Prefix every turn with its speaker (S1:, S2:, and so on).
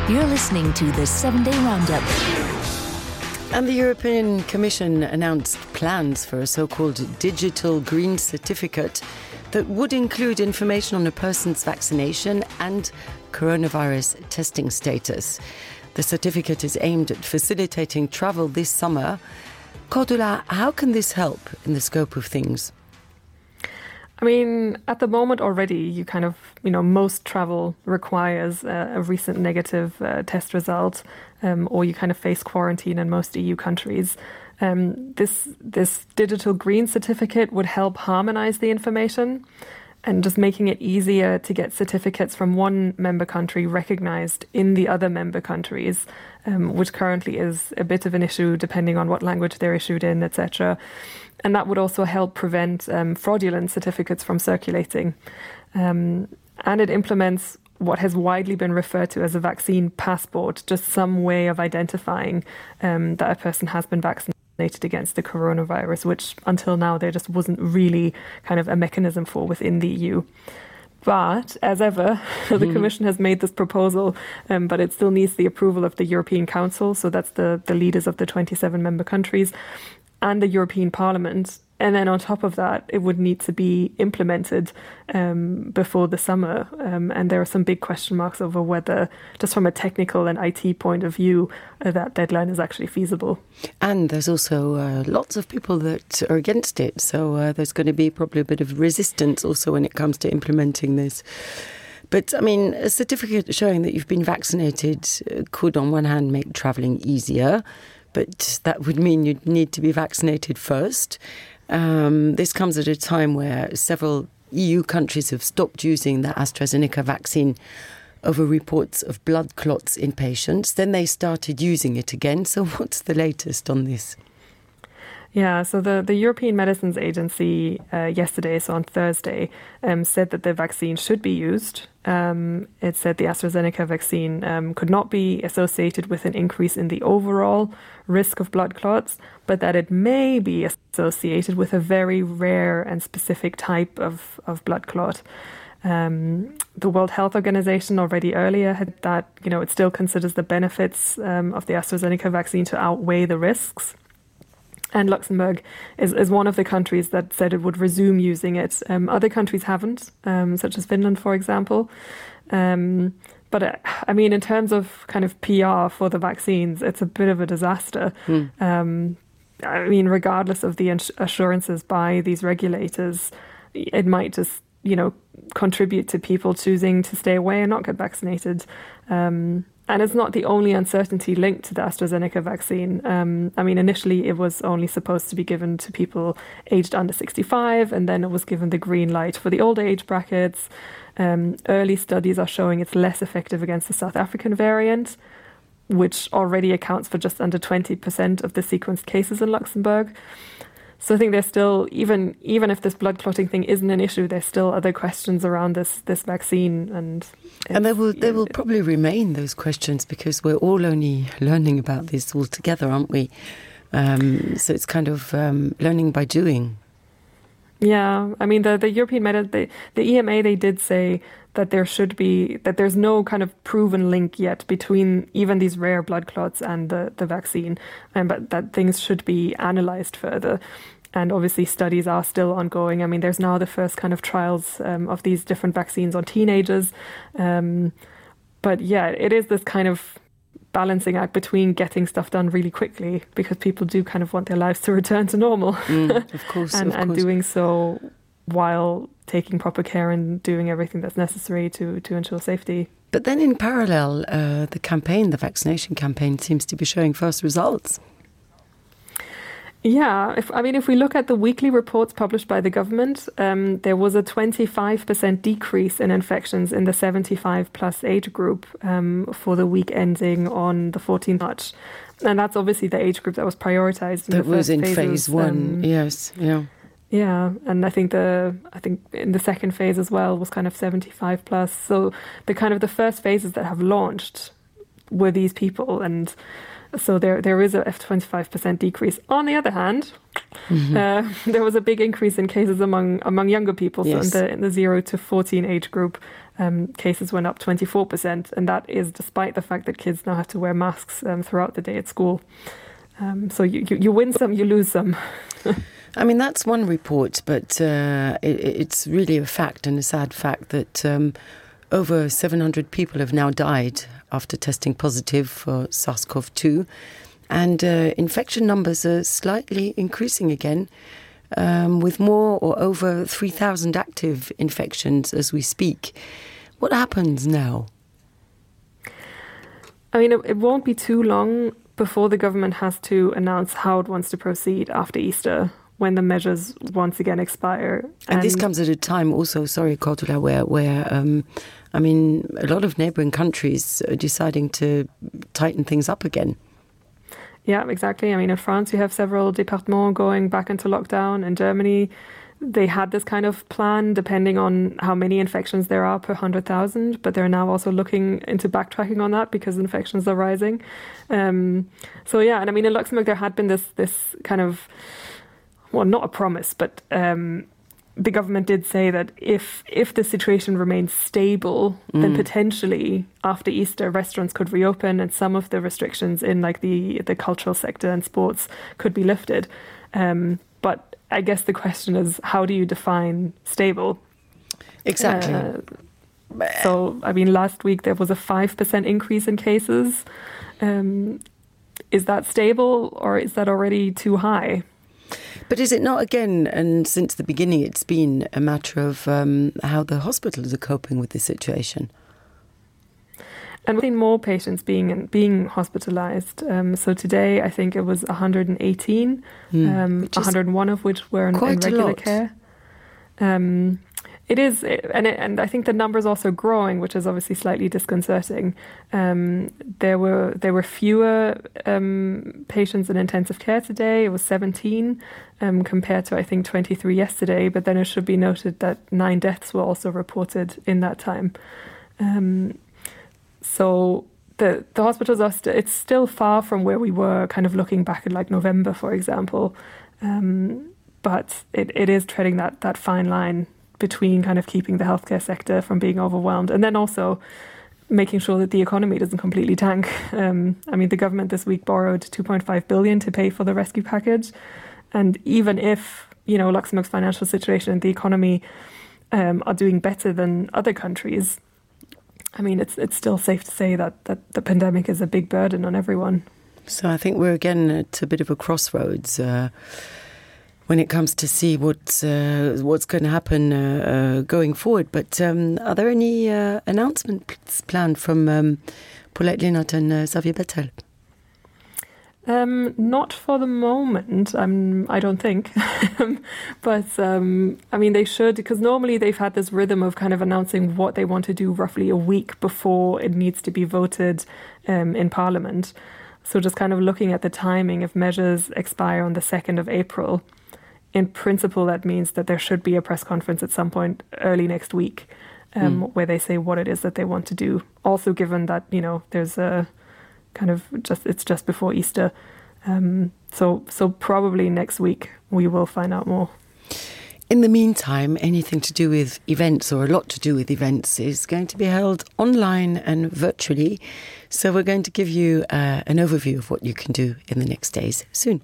S1: You're listening to the 7-Day Roundup.
S2: And the European Commission announced plans for a so-called digital green certificate that would include information on a person's vaccination and coronavirus testing status. The certificate is aimed at facilitating travel this summer. Cordula, how can this help in the scope of things?
S3: I mean, at the moment already, most travel requires a recent negative test result, or you kind of face quarantine in most EU countries. This digital green certificate would help harmonize the information and just making it easier to get certificates from one member country recognized in the other member countries, which currently is a bit of an issue depending on what language they're issued in, etc. And that would also help prevent fraudulent certificates from circulating. And it implements what has widely been referred to as a vaccine passport, just some way of identifying that a person has been vaccinated against the coronavirus, which until now there just wasn't really kind of a mechanism for within the EU. But as ever, the Commission has made this proposal, but it still needs the approval of the European Council. So that's the leaders of the 27 member countries and the European Parliament. And then on top of that, it would need to be implemented before the summer. And there are some big question marks over whether, just from a technical and IT point of view, that deadline is actually feasible.
S2: And there's also lots of people that are against it. So there's going to be probably a bit of resistance also when it comes to implementing this. But, I mean, a certificate showing that you've been vaccinated could, on one hand, make travelling easier. But that would mean you'd need to be vaccinated first. This comes at a time where several EU countries have stopped using the AstraZeneca vaccine over reports of blood clots in patients. Then they started using it again. So what's the latest on this?
S3: Yeah, so the European Medicines Agency yesterday, so on Thursday, said that the vaccine should be used. It said the AstraZeneca vaccine could not be associated with an increase in the overall risk of blood clots, but that it may be associated with a very rare and specific type of blood clot. The World Health Organization already earlier had that, it still considers the benefits of the AstraZeneca vaccine to outweigh the risks. And Luxembourg is one of the countries that said it would resume using it. Other countries haven't, such as Finland, for example. But I mean, in terms of kind of PR for the vaccines, it's a bit of a disaster. I mean, regardless of the assurances by these regulators, it might just, contribute to people choosing to stay away and not get vaccinated. And it's not the only uncertainty linked to the AstraZeneca vaccine. I mean, initially it was only supposed to be given to people aged under 65, and then it was given the green light for the older age brackets. Early studies are showing it's less effective against the South African variant, which already accounts for just under 20% of the sequenced cases in Luxembourg. So I think there's still, even if this blood clotting thing isn't an issue, there's still other questions around this vaccine. And
S2: there will probably remain those questions because we're all only learning about this all together, aren't we? So it's kind of learning by doing.
S3: Yeah, I mean, the European the EMA, they did say that there's no kind of proven link yet between even these rare blood clots and the vaccine, but that things should be analysed further. And obviously studies are still ongoing. I mean, there's now the first kind of trials of these different vaccines on teenagers. But yeah, it is this kind of balancing act between getting stuff done really quickly because people do kind of want their lives to return to normal.
S2: Of course,
S3: and doing so while taking proper care and doing everything that's necessary to ensure safety.
S2: But then in parallel, the vaccination campaign seems to be showing first results.
S3: Yeah, if we look at the weekly reports published by the government, there was a 25% decrease in infections in the 75 plus age group for the week ending on the 14th March. And that's obviously the age group that was prioritized.
S2: That was in phase one, yes, yeah.
S3: Yeah, and I think in the second phase as well was kind of 75 plus. So the first phases that have launched were these people, and So there is a 25% decrease. On the other hand, there was a big increase in cases among younger people.
S2: Yes.
S3: So in the 0 to 14 age group, cases went up 24%. And that is despite the fact that kids now have to wear masks throughout the day at school. So you win some, you lose some.
S2: I mean, that's one report, but it's really a fact and a sad fact that over 700 people have now died after testing positive for SARS-CoV-2. And infection numbers are slightly increasing again, with more or over 3,000 active infections as we speak. What happens now?
S3: I mean, it won't be too long before the government has to announce how it wants to proceed after Easter, when the measures once again expire.
S2: And this comes at a time also, sorry, Cordula, where I mean, a lot of neighbouring countries are deciding to tighten things up again.
S3: Yeah, exactly. I mean, in France, you have several départements going back into lockdown. In Germany, they had this kind of plan depending on how many infections there are per 100,000, but they're now also looking into backtracking on that because infections are rising. So yeah, and I mean, in Luxembourg, there had been this kind of, well, not a promise, but the government did say that if the situation remains stable, then potentially after Easter, restaurants could reopen and some of the restrictions in like the cultural sector and sports could be lifted. But I guess the question is, how do you define stable?
S2: Exactly.
S3: So, I mean, last week there was a 5% increase in cases. Is that stable or is that already too high?
S2: But is it not, again, and since the beginning, it's been a matter of how the hospitals are coping with the situation?
S3: And we've seen more patients being hospitalised. So today, I think it was 118, 101 of which were in regular care. It is, and I think the number is also growing, which is obviously slightly disconcerting. There were fewer patients in intensive care today. It was 17 compared to, I think, 23 yesterday. But then it should be noted that 9 deaths were also reported in that time. So the hospitals are it's still far from where we were kind of looking back at like November, for example. But it is treading that fine line between kind of keeping the healthcare sector from being overwhelmed and then also making sure that the economy doesn't completely tank. I mean, the government this week borrowed 2.5 billion to pay for the rescue package. And even if, you know, Luxembourg's financial situation and the economy are doing better than other countries, I mean, it's still safe to say that the pandemic is a big burden on everyone.
S2: So I think we're again at a bit of a crossroads when it comes to see what's going to happen going forward. But are there any announcements planned from Paulette Linnert and Xavier Bettel?
S3: Not for the moment, I don't think. But, I mean, they should, because normally they've had this rhythm of kind of announcing what they want to do roughly a week before it needs to be voted in Parliament. So just kind of looking at the timing, if measures expire on the 2nd of April, in principle, that means that there should be a press conference at some point early next week where they say what it is that they want to do. Also, given that, you know, there's a kind of it's just before Easter. So probably next week we will find out more.
S2: In the meantime, anything to do with events or a lot to do with events is going to be held online and virtually. So we're going to give you an overview of what you can do in the next days soon.